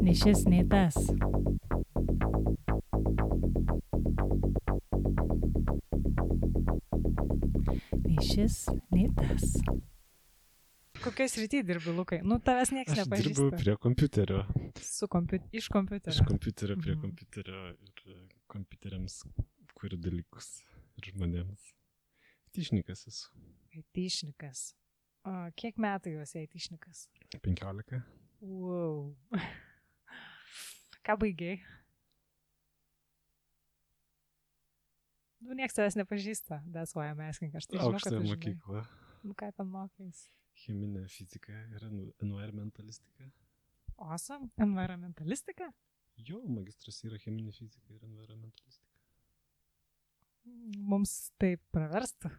Nei šis, nei tas. Nei šis, nei tas. Kokioj srity dirbi, Lukai? Nu, tavęs nieks Aš nepažįsta. dirbu prie kompiuterio. Iš kompiuterio. Iš kompiuterio prie kompiuterio ir kompiuteriams kuriu dalykus ir žmonėms. Aitišnikas esu. Aitišnikas. O kiek metų jau esi aitišnikas? 15. Wow. Ką baigiai? Nu, nieks tavęs nepažįsta. That's why I'm asking. Aš tai žinau, kad Aukštąją tu žinai. mokyklą. Nu, ką ten mokais? Cheminė fizika ir environmentalistika. Awesome. Environmentalistika? Jo, magistras yra cheminė fizika ir environmentalistika. Mums tai praverstų.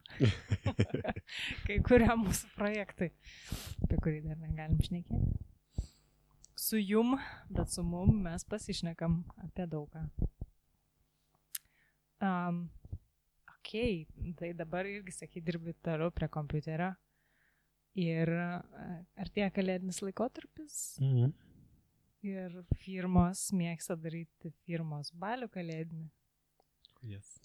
Kai kurie mūsų projektai, apie kurį dar negalim šnekėti. Su jum, bet su mum mes pasišnekam apie daugą. Tai dabar irgi, sakai, dirbi toliau prie kompiuterio. Ir artėja kalėdinis laikotarpis. Ir firmos mėgsta daryti firmos balių kalėdinį. Yes.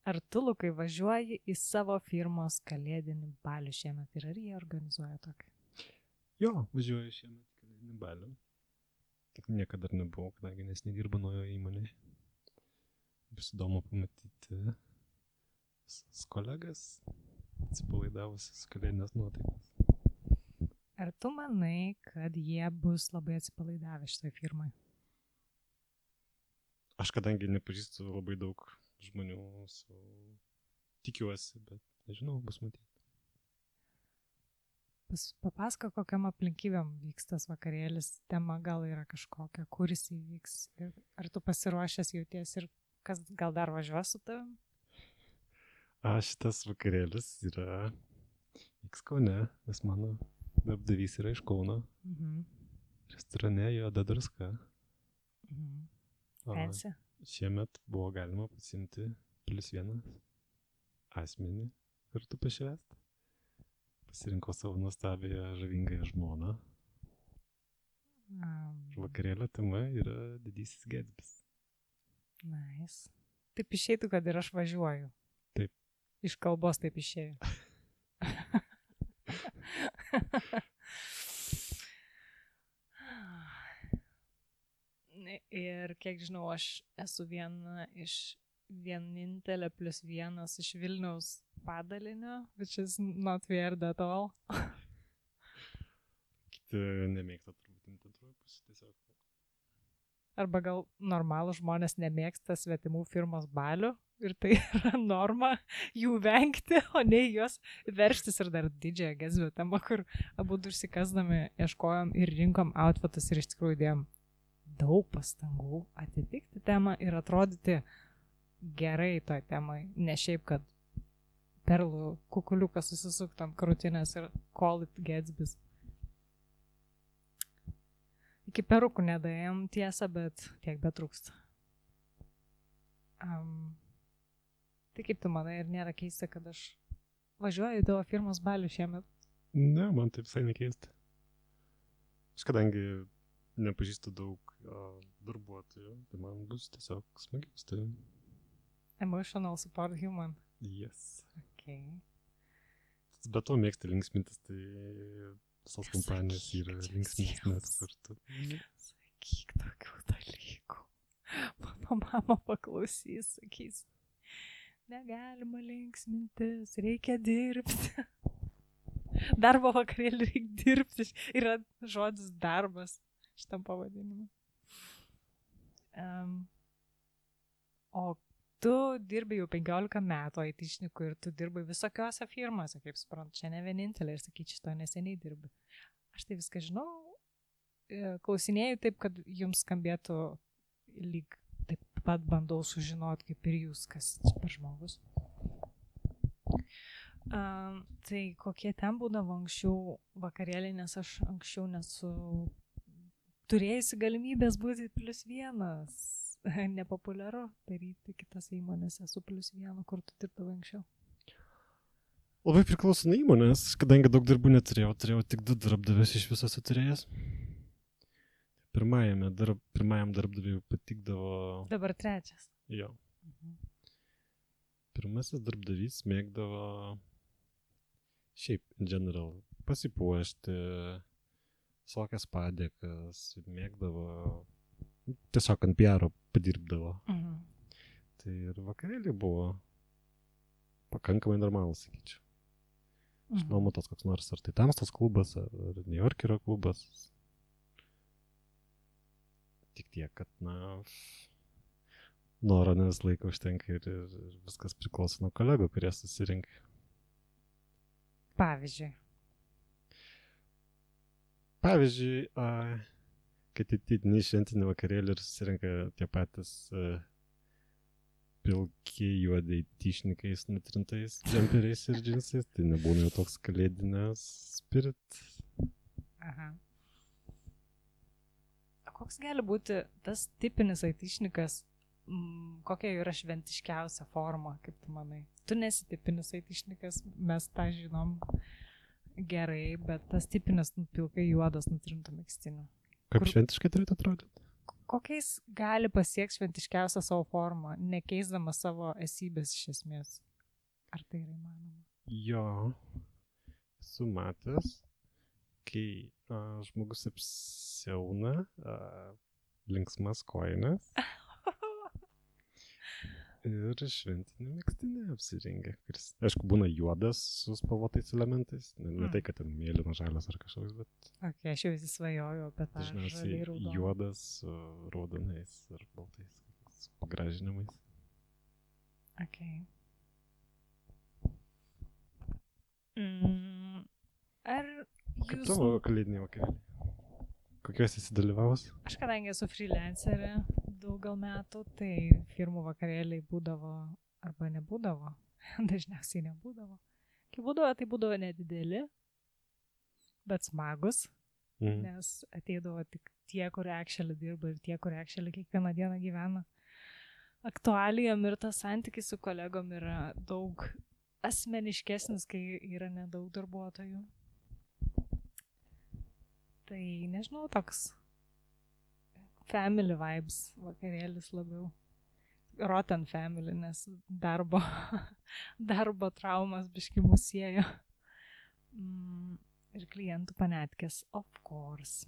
Ar tu, Lukai, važiuoji į savo firmos kalėdinį balių šiemet ir ar jie organizuoja tokį? Jo, važiuoju šiemet kalėdinį balių. Niekada dar nebuvau, kadangi nes nedirbu naujoje įmonėje. Bus įdomu pamatyti kolegas, atsipalaidavusius kalėdinės nuotaikas. Ar tu manai, kad jie bus labai atsipalaidavę šitoj firmai? Aš kadangi nepažįstu labai daug žmonių, tikiuosi, bet nežinau, bus matyti. Papasako, kokiam aplinkybėm vyks tas vakarėlis, tema gal yra kažkokia, kur jis įvyks. Ar tu pasiruošęs jauties ir kas gal dar važiuos su tavim? Šitas vakarėlis yra vyks Kaune, nes mano darbdavys yra iš Kauno. Restorane Juoda druska. Fancy. Šiemet buvo galima pasiimti +1 asmenį kartu pašvęsti. Pasirinkau savo nuostabią žavingąją žmoną. Vakarėlio tema yra Didysis Gatsbys. Nice. Taip išeitų, kad ir aš važiuoju. Taip. Iš kalbos taip išėjo. Ir kiek žinau, aš esu vienintelė +1 iš Vilniaus padalinio, which is not weird at all. Kiti nemėgsta turbūt antrųjų pusė tiesiog. Arba gal normalų žmonės nemėgsta svetimų firmos balių ir tai yra norma jų vengti, o ne juos verštis ir dar didžiąją Gatsby temą, kur abu užsikasdami ieškojom ir rinkom outfitus ir iš tikrųjų dėjom daug pastangų atitikti temą ir atrodyti gerai toj temai, ne šiaip, kad perlų kukuliuką susisuktam krūtinės ir call it Gatsbys. Iki perukų nedaėjom tiesą, bet tiek betrūksta. Tai kaip tu manai, ir nėra keista, kad aš važiuoju į tavo firmos balių šiemet? Ne, man tai visai nekeista. Aš kadangi nepažįstu daug darbuotojų, tai man bus tiesiog smagiau su tavim. Emotional support human. Yes. Okay. Bet to mėgsti linksmintis, tai visos kompanijos yra linksmintis kartu. Sakyk tokių dalykų. Mano mama paklausys, sakys, negalima linksmintis, reikia dirbti. Darbo vakarėlį reikia dirbti. Yra žodis darbas šitam pavadinimu. O tu dirbi jau 15 metų aitišnikų ir tu dirbai visokiose firmose, kaip suprantu, čia ne vienintelė ir sakyčiau, šito neseniai dirbi. Aš tai viską žinau, klausinėjau taip, kad jums skambėtų lyg taip pat bandau sužinoti, kaip ir jūs, kas čia per žmogus. Tai kokie ten būdavo anksčiau vakarėliai, nes aš anksčiau nesu turėjusi galimybės būti +1. Nepopuliaru daryti kitose įmonėse su +1, kur tu dirbdavai anksčiau. Labai priklauso nuo įmonės, kadangi daug darbų neturėjau, turėjau tik 2 darbdavius iš viso turėjęs. pirmajam darbdaviui patikdavo... Dabar trečias. Jo. Pirmasis darbdavys mėgdavo šiaip, in general, pasipuošti, visokias padėkas, mėgdavo, tiesiog ant PR padirbdavo. Tai ir vakarėliai buvo pakankamai normalus, sakyčiau. Išnuomotas koks nors, ar tai Tamstos klubas, ar New Yorkerio klubas. Tik tiek, kad, noro ne visą laiką užtenka ir viskas priklauso nuo kolegų, kurie susirinka. Pavyzdžiui, kad įtidini šventinį vakarėlį ir susirinka tie patys pilki juodai tyšnikais, nutrintais džemperiais ir džinsais, tai nebūna jau toks kalėdinės spirit. Aha. Koks gali būti tas tipinis aitišnikas, kokia yra šventiškiausia forma, kaip tu manai? Tu nesi tipinis aitišnikas, mes tą žinom gerai, bet tas tipinis pilkai juodas nutrintų megztinių. Kaip šventiškai turėtų atrodyti? Kokiais gali pasiekti šventiškiausią savo formą, nekeisdama savo esybės iš esmės? Ar tai yra įmanoma? Jo, esu matęs, kai žmogus apsiauna linksmas kojines ir šventinį megztinį apsirengia, kuris, aišku, būna juodas su spalvotais elementais, ne tai, kad ten mėlynas, žalias ar kažkoks, bet... Ok, aš jau įsisvajoju apie tą žaliai raudoną. Juodas su raudonais ar baltais pagražinimais. Ok. Ar Kaip tavo kalėdiniai vakarėliai? Kokios esi dalyvavus? Aš kadangi esu freelancerė daug gal metų, tai firmų vakarėliai būdavo arba nebūdavo. Dažniausiai nebūdavo. Kai būdavo, tai būdavo nedideli, bet smagus, nes ateidavo tik tie, kur actually dirba ir tie, kur actually kiekvieną dieną gyvena aktualijom ir tas santykis su kolegom yra daug asmeniškesnis, kai yra nedaug darbuotojų. Tai, nežinau, toks family vibes vakarėlis labiau. Rotten family, nes darbo traumas biški mus siejo. Ir klientų panetkės, of course.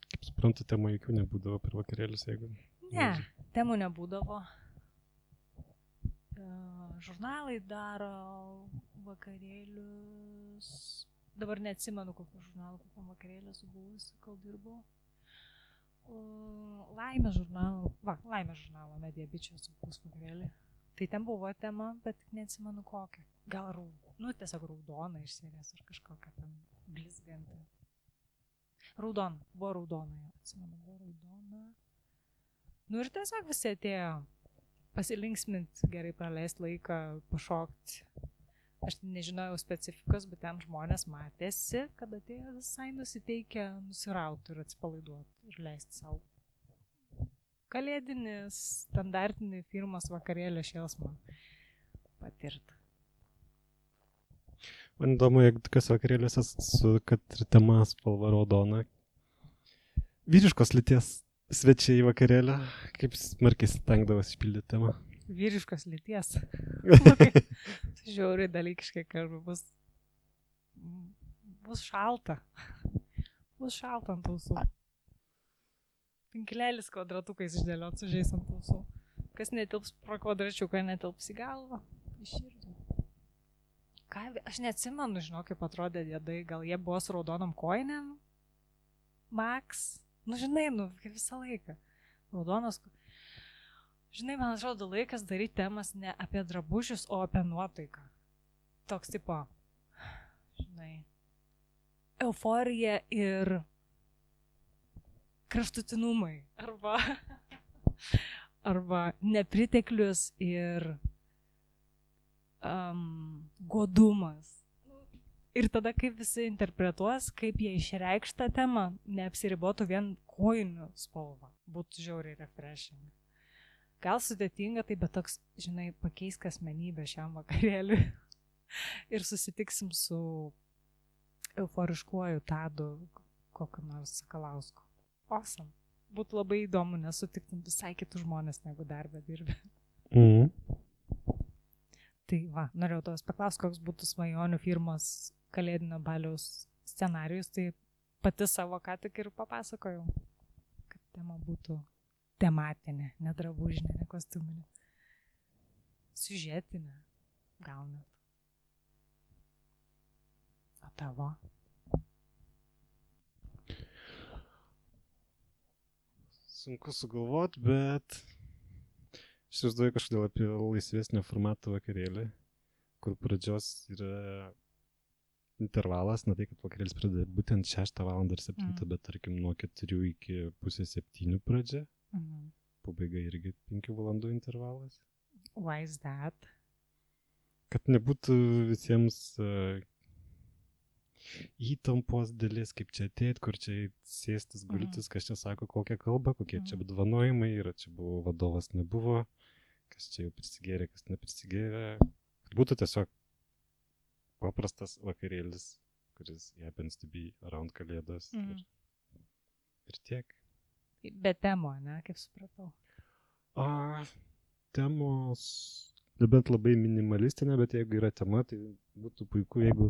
Kaip suprantu, temų jokių nebūdavo per vakarėlius, jeigu... Ne, temų nebūdavo. Žurnalai daro vakarėlius... Dabar neatsimenu, kokiu žurnalu, kokiam vakarėlį esu buvusi, kol dirbau. Laimės žurnalo Media Bičio esu buvus vakarėlį. Tai ten buvo tema, bet neatsimenu kokią. Gal tiesiog raudona iš serijos ar kažkokia ten blizganti. Buvo raudona, atsimenu, buvo raudona. Ir tiesiog visi atėjo pasilinksminti, gerai praleisti laiką, pašokti. Aš nežinojau specifikos, bet ten žmonės matėsi, kad atėjo visai nusiteikę nusirauti ir atsipalaiduoti ir leisti savo kalėdinis, standartinį firmos vakarėlio šėlsmą patirti. Man įdomu, jeigu tokios vakarėliuose kad ir tema spalva raudona. Vyriškos lyties svečiai į vakarėlį, kaip smarkiai stengdavas išpildyti temą? Vyriškos lyties. Žiauriai dalykiškai kalba, bus šalta. Bus šalta ant ausų. Pinklėlis kvadratukais išdėliot sužeis ant ausų. Kas netilps pro kvadračiuką, netilps į galvą. Į širdį. Aš neatsimenu, žinau, kaip atrodė dėdai. Gal jie buvo su raudonom kojinėm? Max? Žinai, kaip visą laiką. Raudonos... Žinai, man atrodo laikas daryti temas ne apie drabužius, o apie nuotaiką. Toks tipo, žinai, euforija ir kraštutinumai. Arba nepriteklius ir godumas. Ir tada kaip visi interpretuos, kaip jie išreikš tą temą, neapsiribotų vien kojinių spalva. Būtų žiauriai refreshing. Gal sudėtinga, tai bet toks, žinai, pakeisk asmenybę šiam vakarėliui ir susitiksim su euforiškuoju Tadu kokiu nors Sakalausku. Awesome. būtų labai įdomu, nes sutiktum visai kitus žmonės, negu darbę dirbi. Tai va, norėjau tavęs paklausti, koks būtų svajonių firmos kalėdinio baliaus scenarijus, tai pati savo ką tik ir papasakojau, kad tema būtų tematinė, ne drabužinė, ne kostiuminė. Siužetinė, gal net. O tavo? Sunku sugalvoti, bet aš įsivaizduoju kažkodėl apie laisvesnio formato vakarėlį, kur pradžios yra intervalas, na tai, kad vakarėlis pradeda būtent 6 val. Ir 7, bet tarkim nuo 4 iki pusės 7 pradžia. Pabaiga irgi 5 valandų intervalas. Why is that? Kad nebūtų visiems įtampos dalis, kaip čia ateit, kur čia sėstis, gultis, kas čia sako kokią kalbą, kokie čia apdovanojimai yra, čia buvo vadovas, nebuvo, kas čia jau prisigėrė, kas neprisigėrė. Kad būtų tiesiog paprastas vakarėlis, kuris happens to be around kalėdos ir tiek. Be temo, ne, kaip supratau. Temos, nebent labai minimalistinė, bet jeigu yra tema, tai būtų puiku, jeigu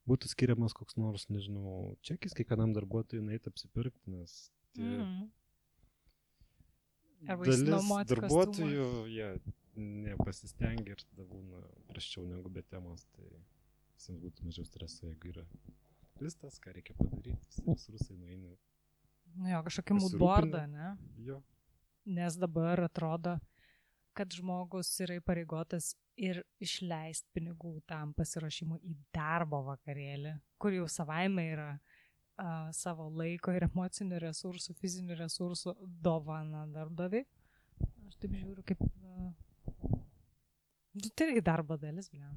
būtų skiriamas koks nors, nežinau, čekis kiekvienam darbuotojui nueiti apsipirkti, nes dalis darbuotojų nepasistengia ir tada būna prasčiau negu be temos, tai visiems būtų mažiau streso, jeigu yra listas, ką reikia padaryti, visi rusai nueina. Nu jo, kažkokį moodboardą, ne? Jo. Nes dabar atrodo, kad žmogus yra įpareigotas ir išleisti pinigų tam pasiruošimui į darbo vakarėlį, kur jau savaime yra savo laiko ir emocinių resursų, fizinių resursų dovana darbdaviui. Aš taip žiūriu, kaip tai irgi darbo dalis, blema.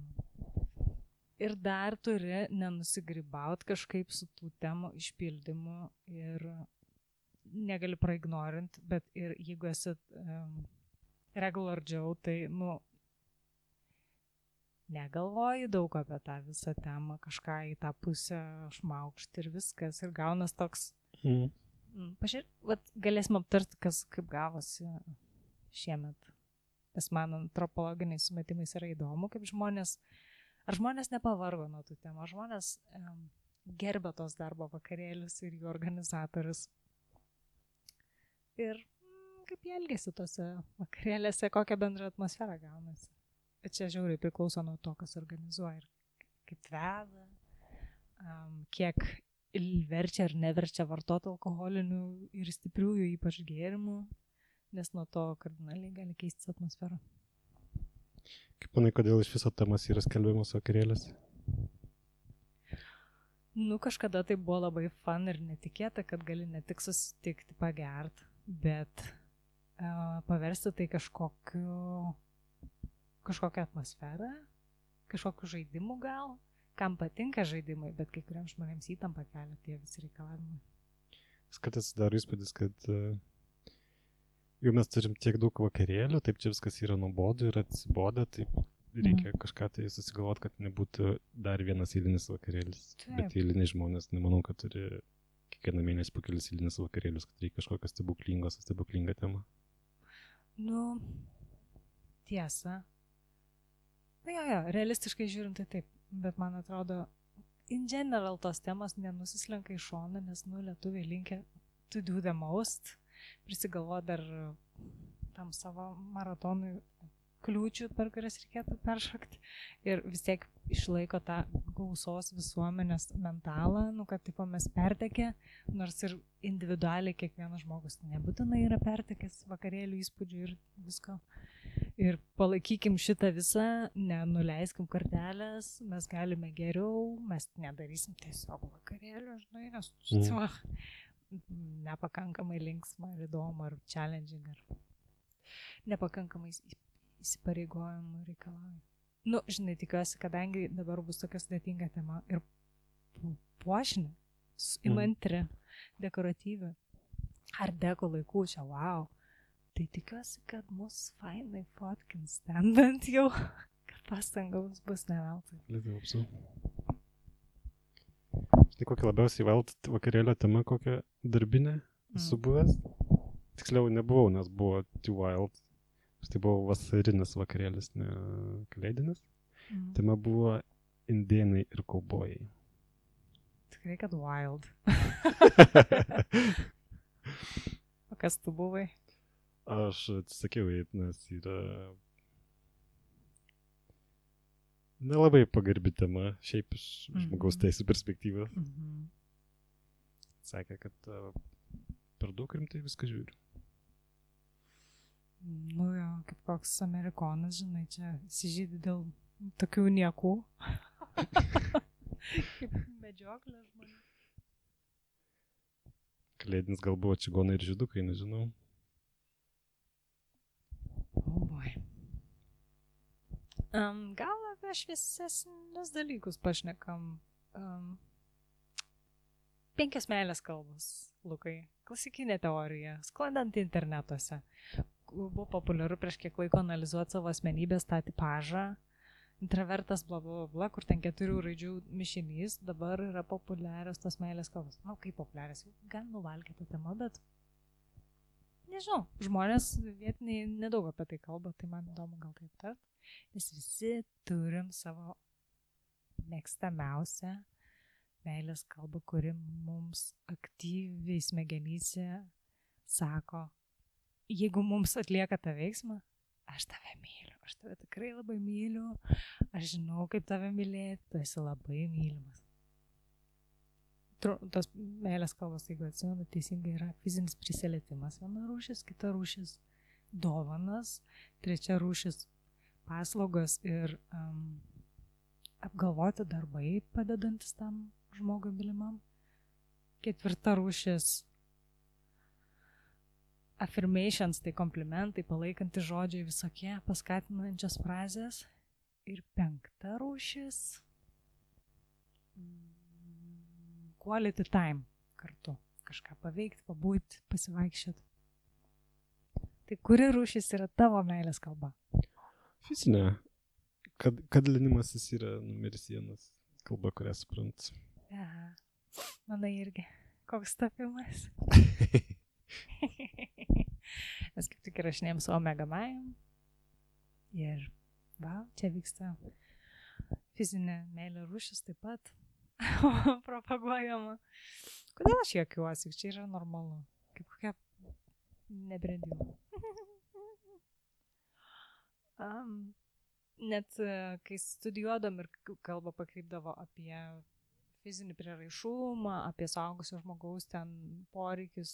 Ir dar turi nenusigrybaut kažkaip su tų temų išpildymu ir negali praignorint, bet ir jeigu esi regular Joe, tai, negalvoji daug apie tą visą temą, kažką į tą pusę šmaukšti ir viskas, ir gaunas toks. Pažiūrėk, galėsim aptarti, kaip gavosi šiemet. Nes man antropologiniais sumetimais yra įdomu, kaip ar žmonės nepavargo nuo tų temų, ar žmonės gerbė tos darbo vakarėlius ir jų organizatorius. Ir kaip jie elgėsi tose vakarėlėse, kokią bendrą atmosferą gaunasi. Bet čia žiauriai priklauso nuo to, kas organizuoja ir kaip veda, kiek verčia ar neverčia vartoti alkoholinių ir stipriųjų, ypač gėrimų, nes nuo to kardinaliai gali keistis atmosfera. Kaip manai, kodėl iš viso temas yra skelbiamos vakarėlės? Kažkada tai buvo labai fun ir netikėta, kad gali ne tik susitikti, pagert, bet paversti tai kažkokią atmosferą, kažkokių žaidimų gal, kam patinka žaidimai, bet kai kuriems žmonėms įtampa kelia tie visi reikalavimai. Kartais daro įspūdis, kad jau mes turim tiek daug vakarėlių, taip čia viskas yra nuobodu ir atsibodę, tai reikia kažką tai susigalvoti, kad nebūtų dar vienas eilinis vakarėlis. Taip. Bet eiliniai žmonės, nemanau, kad turi kiekvieną mėnesį po kelis eilinis vakarėlius, kad reikia kažkokią stebuklingą temą. Tiesa. Jo, realistiškai žiūrint tai taip, bet man atrodo, in general tos temos nenusislenka į šoną, nes lietuviai linkia to do the most, prisigalvo dar tam savo maratonui kliūčių, per kurias reikėtų peršokti ir vis tiek išlaiko tą gausos visuomenės mentalą, kad tipo mes pertekę, nors ir individualiai kiekvienas žmogus nebūtinai yra pertekęs vakarėlių įspūdžių ir visko. Ir palaikykim šitą visą, nenuleiskim kartelės, mes galime geriau, mes nedarysim tiesiog vakarėlių, žinai, nes nepakankamai linksma ir įdomu, ar challenging, ar nepakankamai įsipareigojimų reikalauja. Žinai, tikiuosi, kadangi dabar bus tokia sudėtinga tema ir puošinė, įmantri, dekoratyvi, art deco laikų čia, wow. Tai tikiuosi, kad mus fainai fotkins ten bent jau, kad pastangos bus neveltui. Lietuvapsu. Štai kokią labiausiai velt vakarėlio tema, kokią darbinę esu buvęs? Tiksliau nebuvau, nes buvo Too Wild. Tai buvo vasarinis vakarėlis, ne kalėdinis. Tema buvo indėnai ir kaubojai. Tikrai, kad wild. O kas tu buvai? Aš atsisakiau eiti, nes yra nelabai pagarbi tema, šiaip iš žmogaus teisų perspektyvos. Sakė, kad per daug rimtai viską žiūriu. Nu jo, kaip koks amerikonas, žinai, čia įsižydi dėl tokių niekų. Kaip medžioklė žmonių. Kalėdinis gal buvo čigonai ir žydukai, nežinau. Oh boy. Gal apie šviesesnius dalykus pašnekam. 5 meilės kalbos, Lukai. Klasikinė teorija, sklandant internetuose. Buvo populiaru prieš kiek laiko analizuoti savo asmenybės tą tipažą. Intravertas bla bla bla, kur ten 4 raidžių mišinys, dabar yra populiarios tos meilės kalbos. Na, kaip populiarios, gan nuvalkė tą temą, bet nežinau, žmonės vietiniai nedaug apie tai kalba, tai man įdomu gal kaip tart. Nes visi turim savo mėgstamiausią meilės kalbą, kuri mums aktyviai smegenyse sako, jeigu mums atlieka tą veiksmą, aš tave myliu, aš tave tikrai labai myliu, aš žinau, kaip tave mylėti, tu esi labai mylimas. Tas meilės kalbos, jeigu atsimenu, teisingai yra fizinis prisilietimas, viena rūšis, kita rūšis dovanas, trečia rūšis paslaugos ir apgalvoti darbai padedantis tam žmogui mylimam. Ketvirta rūšis affirmations, tai komplimentai, palaikantis žodžiai visokie, paskatinančios frazės. Ir 5 rūšis quality time kartu. Kažką paveikti, pabūti, pasivaikščioti. Tai kuri rūšis yra tavo meilės kalba? Fizinė. Kadlinimasis yra numeris 1 kalba, kurią suprantu. Aha. Manai irgi. Koks tapimas? Mes kaip tik įrašinėjom su Omega Majam. Ir čia vyksta fizinė meilė rūšis taip pat propaguojama. Kodėl aš juokiuosi? Čia yra normalu. Kaip kokia nebrendimo. Net kai studijuodam ir kalba pakreipdavo apie fizinį prieraišumą, apie suaugusio žmogaus ten poreikius,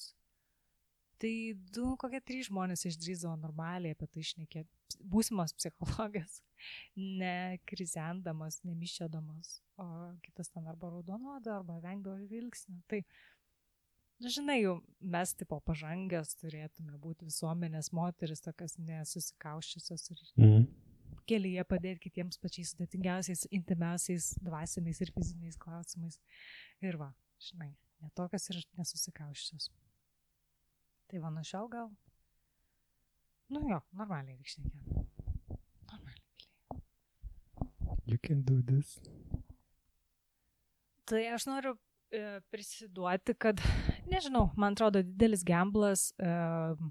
tai 3 žmonės išdrįsdavo normaliai apie tai šnekėti. Būsimas psichologas, ne krizendamas, nemiščiodamas, o kitas ten arba raudonuodo, arba vengdavo žvilgsnio. Tai, žinai, jau mes tipo pažangios turėtume būti visuomenės moteris, tokias nesusikauščiusios ir kelyje padėti kitiems pačiais sudėtingiausiais, intimiausiais, dvasiniais ir fiziniais klausimais. Ir žinai, netokios ir nesusikauščios. Tai nuo šiol gal? Normaliai reikšnekė. Normaliai. You can do this. Tai aš noriu prisiduoti, kad, nežinau, man atrodo didelis gamblas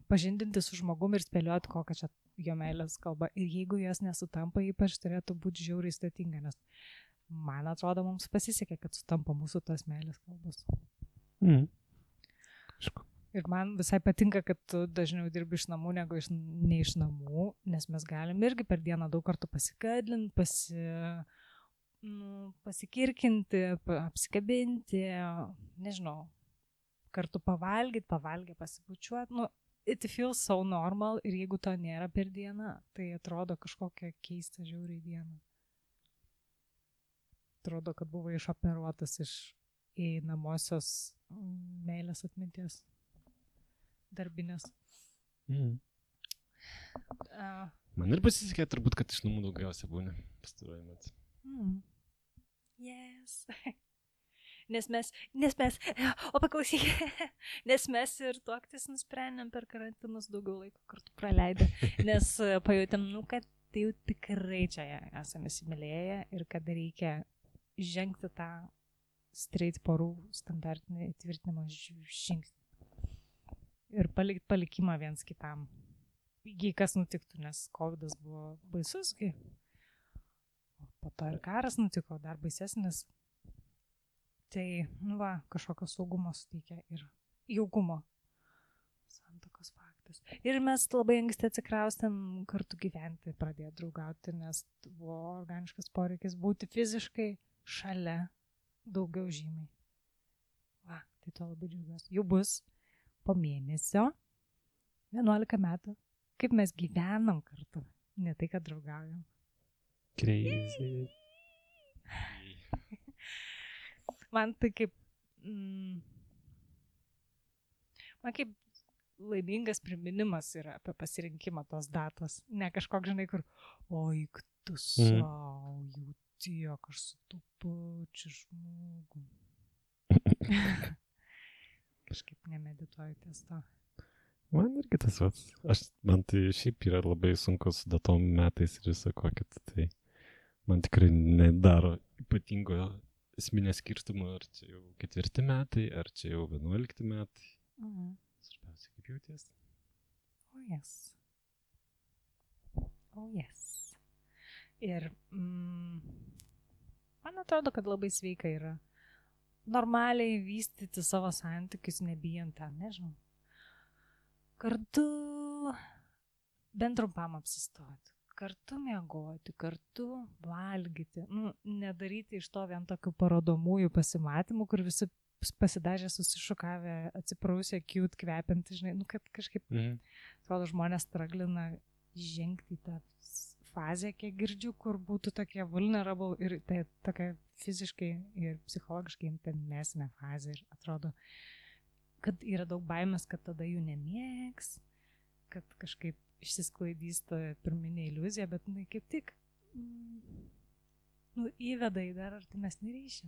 pažindinti su žmogumi ir spėlioti, kokia čia jo meilės kalba. Ir jeigu jos nesutampa, ypač turėtų būti žiauriai sudėtinga, nes man atrodo, mums pasisekė, kad sutampa mūsų tos meilės kalbos. Ir man visai patinka, kad tu dažniau dirbi iš namų negu ne iš namų, nes mes galim irgi per dieną daug kartų pasikadlinti, pasikirkinti, apsikabinti, nežinau, kartu pavalgyti, pasibučiuoti. It feels so normal ir jeigu to nėra per dieną, tai atrodo kažkokia keista žiauriai diena. Atrodo, kad buvo išoperuotas iš įeinamosios meilės atminties darbinės. Man ir pasisekė turbūt, kad iš namų daugiausia būna pastaruoju metu. Yes. Nes mes, paklausyk, nes mes ir tuoktis nusprendėm per karantinus daugiau laiko kartu praleidę, nes pajutėm, kad tai jau tikrai čia esame įsimylėję ir kad reikia žengti tą straight porų standartinį įtvirtinimo žingsnį. ir palikimą viens kitam. Jei kas nutiktų, nes COVID buvo baisus, po to ir karas nutiko, dar baisesnis. Tai, kažkokio saugumo suteikia ir jaukumo. Santuokos faktas. Ir mes labai anksti atsikraustėm kartu gyventi, pradėjo draugauti, nes buvo organiškas poreikis būti fiziškai šalia daugiau žymiai. Tai to labai džiaugiuosi. Jau bus po mėnesio 11 metų, kaip mes gyvenam kartu, ne tai, kad draugaujam. Crazy. Man tai kaip laimingas priminimas yra apie pasirinkimą tos datos. Ne kažkoks, žinai, kur, oi, tu savo, jau tiek, aš su tu pačiu žmogum. Kažkaip nemedituoju ties to. Man irgi tas pats. Man tai šiaip yra labai sunku su datom metais ir visą kokit. Tai man tikrai nedaro ypatingo esminės skirtumo, ar čia jau 4 metai, ar čia jau 11 metai. Svarbiausia, kaip jauties. Oh yes. Ir man atrodo, kad labai sveika yra normaliai vystyti savo santykius, nebijant ten, nežinau. Kartu bent trumpam apsistoti, kartu miegoti, kartu valgyti. Nedaryti iš to vien tokių parodomųjų pasimatymų, kur visi pasidažę, susišukavę, atsiprausę, cute, kvepiantį, žinai, kad kažkaip, atrodo, žmonės straglina žengti į tą fazę, kiek girdžiu, kur būtų tokie vulnerable ir tai tokia fiziškai ir psichologiškai intimesnė fazė. Ir atrodo, kad yra daug baimės, kad tada jų nemėgs, kad kažkaip išsisklaidys ta pirminė iliuzija, bet kaip tik įveda į dar artimesnį ryšį.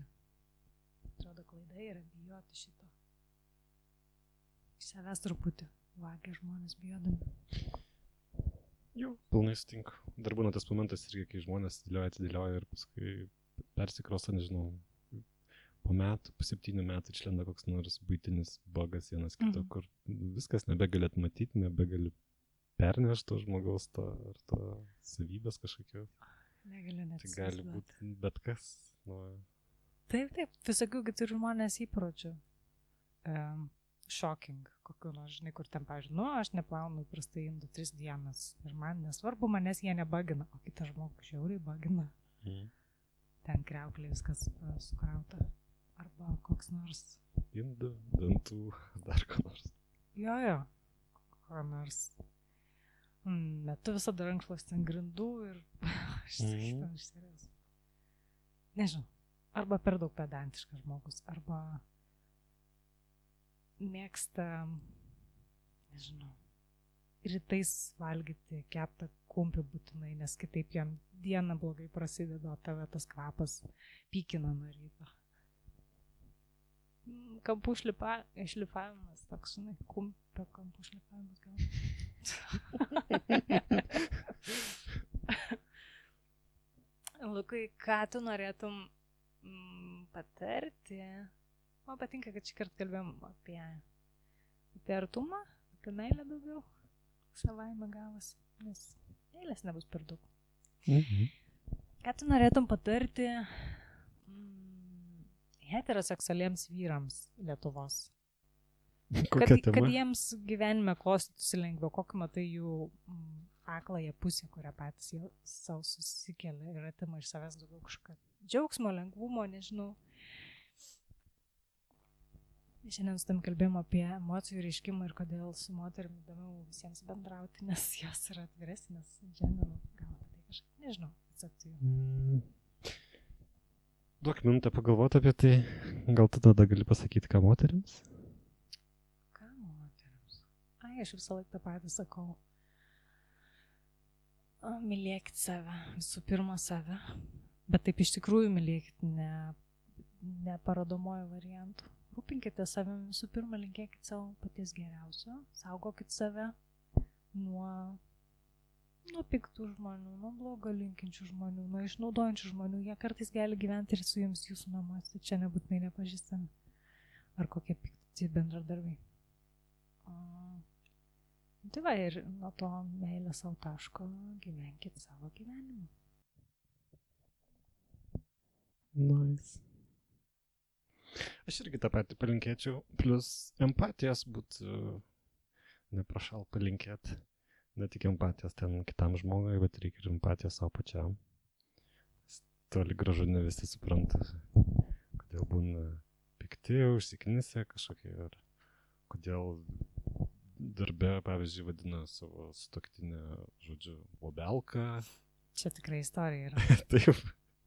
Atrodo, klaida yra bijoti šito. Iš savęs truputį vagia žmonės bijodami. Jau, pilnai sutinku. Dar būna tas momentas irgi, kai žmonės atidėlioja ir paskui persikrosta, nežinau, po 7 metų išlenda koks nors buitinis bogas vienas kito, kur viskas nebegalėt matyti, nebegali pernešti to žmogaus ar to savybės kažkokio. Negaliu net. Tai gali būti bet kas. Taip, visokių turi žmonės įpročių. Shocking, kokiu nors, žinai, kur ten, pavyzdžiui, aš neplaunu prastai indų 3 dienas ir man nesvarbu, manęs jie nebagina, o kitas žmogus žiauriai bagina. Ten kriauklė viskas sukrauta. Arba koks nors. Indų, dantų, dar ko nors. Jo, ko nors. Metu visada rankšluostį ant grindų ir išsirės. Nežinau, arba per daug pedantiškas žmogus, arba mėgsta, nežinau, rytais valgyti keptą kumpį būtinai, nes kitaip jam diena blogai prasideda, o tave tas kvapas pykina nuo ryto. Kampų šlifavimas, toks, žinai, kumpio kampų šlifavimas gal. Lukai, ką tu norėtum patarti? Man patinka, kad šį kartą kalbėjom apie artumą, apie meilę daugiau. Savaime gavas, nes meilės nebus per daug. Ką tu norėtum patarti heteroseksualiems vyrams Lietuvos? Kad jiems gyvenime klostytųsi lengviau, kokį matai jų akląją pusę, kurią patys jie savo susikelia ir atima iš savęs daugiau kažką džiaugsmo, lengvumo, nežinau. Šiandien su tam kalbėjom apie emocijų reiškimą ir kodėl su moterim įdomiau visiems bendrauti, nes jos yra atviresnės. Šiandien gal apie tai kažkaip, nežinau, atsakti. Duok minutę pagalvoti apie tai, gal tu tada gali pasakyti, ką moterims? Ką moterims? Aš visą laiką tą patį sakau. Mylėkit save, visų pirma save, bet taip iš tikrųjų mylėkit, ne parodomojo variantų. Rūpinkite savim, visų pirma, linkėkit savo paties geriausio, saugokit save nuo piktų žmonių, nuo blogo linkinčių žmonių, nuo išnaudojančių žmonių. Jie kartais gali gyventi ir su jums jūsų namuose, čia nebūtinai nepažįstami. Ar kokie pikti bendradarbiai. Tai va, ir nuo to meilės savo taško gyvenkit savo gyvenimą. Nice. Aš irgi tą patį palinkėčiau, plus empatijos būtų neprašal palinkėti. Ne tik empatijos ten kitam žmogui, bet reikia ir empatijos savo pačiam. Toli gražu ne visi supranta, kodėl būna pikti, užsiknisę kažkokie, ir kodėl darbe, pavyzdžiui, vadina savo sutuoktinę, žodžiu, bobelka. Čia tikrai istorija yra. Taip.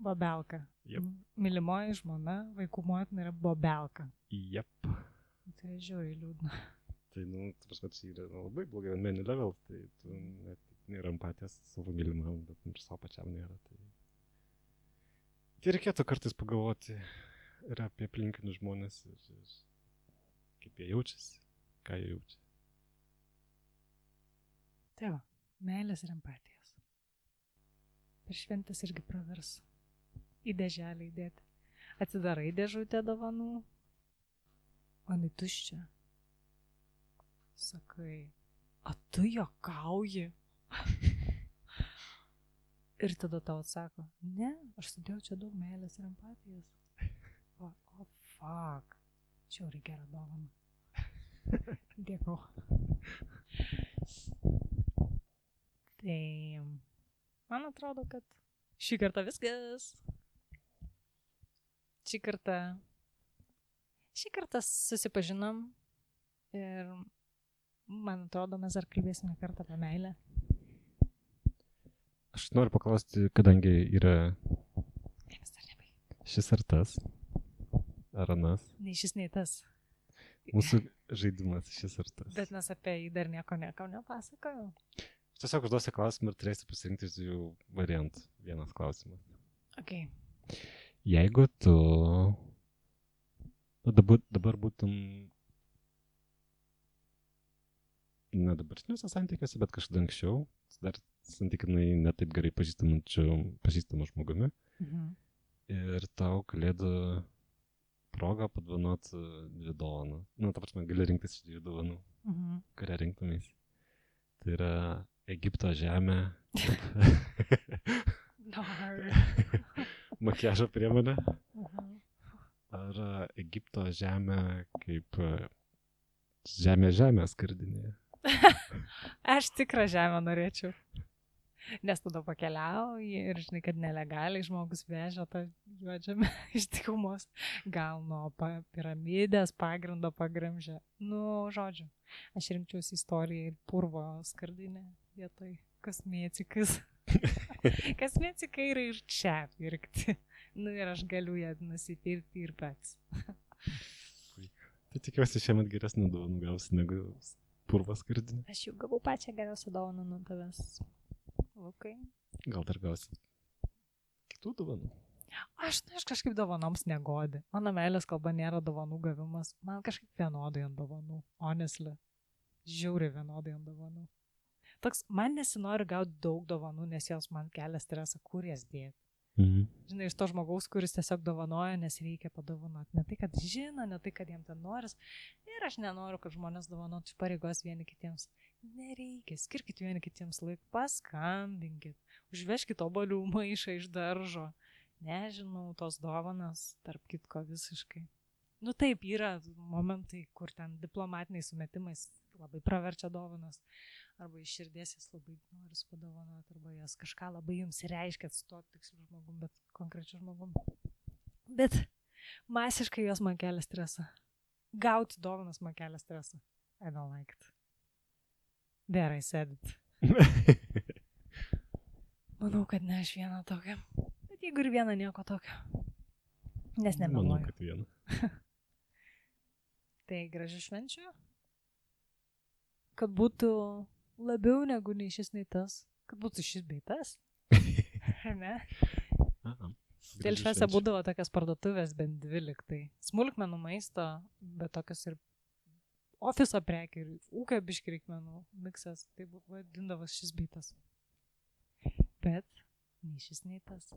Bobelka. Jep. Mylimoji žmona, vaikų motina yra bobelka. Jep. Tai žiūri liūdna. Tai, prasme, tai yra labai blogai menu level, tai tu net nėra empatijos savo mylimam, bet ir savo pačiam nėra. Tai reikėtų kartais pagalvoti ir apie aplinkinius žmonės, ir kaip jie jaučiasi, ką jie jaučia. Tai va, meilės ir empatijos. Per šventės irgi pravers į dėželę įdėti. Atsidarai dėžutę dovanų, o jinai tuščia. Sakai, a tu juokauji? Ir tada tau atsako, ne, aš sudėjau čia daug meilės ir empatijos. O fuck, čia jau reikia dovaną. Dėkau. Tai man atrodo, kad šį kartą viskas. Šį kartą susipažinom ir man atrodo, mes dar kalbėsime kartą apie meilę. Aš noriu paklausti, kadangi yra šis ar tas, ar anas. Nei šis, nei tas. Mūsų žaidimas šis ar tas. Bet mes apie jį dar nieko nepasakojau. Aš tiesiog užduosiu klausimą ir turėsiu pasirinkti iš dviejų variantų. Vienas klausimas. Okay. Jeigu tu dabar būtum ne dabartiniuose santykiuose, bet kažkada anksčiau, dar santykinai netaip gerai pažįstamu žmogumi, ir tau kalėdų progą padovanoti 2 dovanų. Ta prasme, gali rinktis iš 2 dovanų, kurią rinktumės. Tai yra Egipto žemė, makiažo priemonė, ar Egipto žemė kaip žemė skardinėje. Aš tikrą žemę norėčiau. Nes tada pakeliauji ir žinai, kad nelegaliai žmogus vežia tą juodžemę iš dykumos. Gal nuo piramidės pagrindo pagramžia. Žodžiu, aš rinkčiausi istoriją ir purvo skardinę vietoj kosmetikas. Kosmetikai yra ir čia pirkti. Ir aš galiu ją nusipirkti ir pats. Tai tikiuosi šiemet geresnį dovanų gausi negu purvo skardinę. Aš jau gavau pačią geriausią dovaną nuo tavęs. Okay. Gal dar gausi kitų dovanų? Aš kažkaip dovanoms negodi. Mano meilės kalba nėra dovanų gavimas. Man kažkaip vienodai ant dovanų. Honestly. Žiauriai vienodai ant dovanų. Toks, man nesinori gauti daug dovanų, nes jos man kelia stresą, kur jas dėti. Žinai, iš to žmogaus, kuris tiesiog dovanoja, nes reikia padovanoti. Ne tai, kad žino, ne tai, kad jiem ten noris. Ir aš nenoriu, kad žmonės dovanotų iš pareigos vieni kitiems. Nereikia, skirkit vieni kitiems laiką, paskambinkit, užveškit obuolių maišą iš daržo. Nežinau, tos dovanas, tarp kitko visiškai. Taip, yra momentai, kur ten diplomatiniais sumetimais labai praverčia dovanas. Arba iš širdies jas labai noris padovanoti, arba jas kažką labai jums reiškia su to tiksliu žmogum, bet konkrečiu žmogum. Bet masiškai jos man kelia stresą. Gauti dovanas man kelia stresą. I don't like it. There I said it. Manau, kad ne aš vieną tokią. Bet jeigu ir vieną nieko tokio. Nes nemeluoju. Manau, kad vieną. Tai gražių švenčių. Kad būtų labiau negu nei šis, nei tas. Kad būtų šis bei tas. Ne? Dėl šviesą būdavo tokias parduotuvės bent 2 liktai. Smulkmenų maisto, bet tokios ir ofiso prekių ir ūkio biškį reikmenų miksas. Tai vadindavas šis bei tas. Bet nei šis, nei tas.